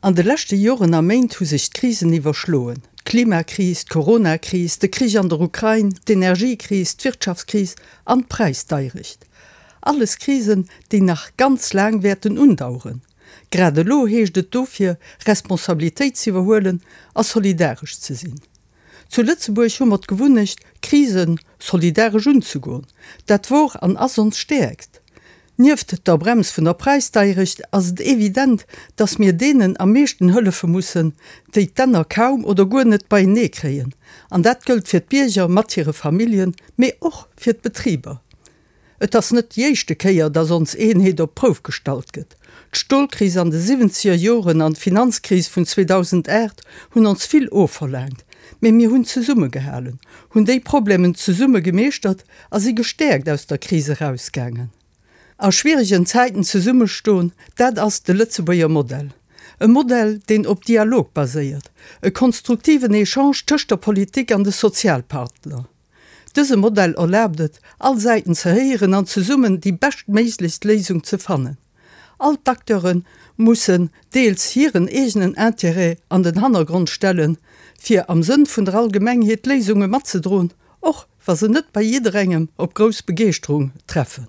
An de leschte Joren a Méint hu sech d'Krisen iwwerschloen, d'Klimakris, d'Coronakris, de Krich an der Ukrain, d'Energiekris, d'Wirtschaftskris an d'Präisdeierecht. Alles Krisen, déi nach ganz laang wäerten undaueren. Grad elo heescht et dofir, Responsabilitéit z'iwwerhuelen a solidaresch ze sinn. Zu Lëtzebuerg hu mer d'Gewunnecht, Krise solidaresch unzegoen. Dat wor an ass ons Stäerkt. Nieft der Brems vun der Präisdeierecht ass et evident, dass mir deenen am meeschten hëllefe mussen, déi d'Enner kaum oder guer net beienee kréien. An dat gëllt fir d'Bierger mat hire Familljen, mee och fir d'Betriber. Et ass net déi éischte Kéier, dass ons Eenheet op d'Prouf gestallt gëtt. D'Stolkris an de siwwenzeger Joren an d'Finanzkris vun 2008 hunn ons vill ofverlaangt, mee mir hunn zesummegehalen, hunn déi Problemen zesumme gemeeschtert a si gestäerkt aus der Kris erausgaangen. A schwieregen Zäiten zesummestoen, dat ass de Lëtzebuerger Modell. E Modell, deen op Dialog baséiert, e konstruktiven Echange tëscht der Politik an de Sozialpartner. Dëse Modell erlaabt et, all Säiten ze héieren an zesummen déi beschtméiglechst Léisung ze fannen. All d'Acteure mussen deels hiren eegenen Intérêt an den Hannergrond stellen, fir am Sënn vun der Allgemengheet Léisunge matzedroen, och wa se net bei jidderengem op grouss Begeeschterung treffen.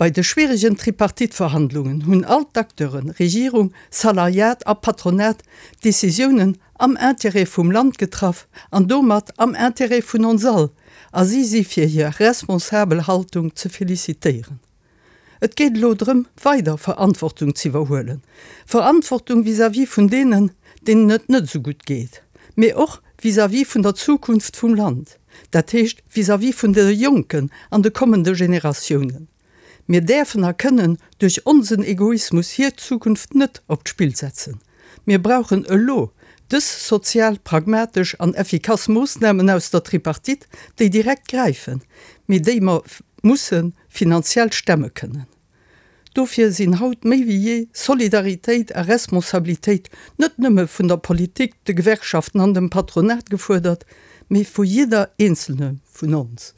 Bei de schwieregen Tripartite-Verhandlungen hunn all d'Acteuren, Regierung, Salariat a Patronat, Decisiounen am Intérêt vum Land getraff an domat am Intérêt vun ons all, a si si fir hir responsabel Haltung ze felicitéieren. Et geet elo drëm, weider Verantwortung z'iwwerhuelen, Verantwortung vis-à-vis vun deenen, deenen et net esou gutt geet, mee och vis-à-vis vun der Zukunft vum Land. Dat heescht vis-à-vis vun de Jonken an de kommende Generatiounen. Mir däerfen a kënnen duerch onsen Egoismus hir Zukunft net op d'Spill setzen. Mir brauchen elo dës sozial, pragmatesch an effikass Moossnamen aus der Tripartite, déi direkt gräifen, mee déi mer musse finanziell stemme kënnen. Dofir sinn haut méi wéi jee Solidaritéit a Responsabilitéit net nëmme vun der Politik, de Gewerkschaften an dem Patronat gefuerdert, mee vu jidder eenzelne vun ons.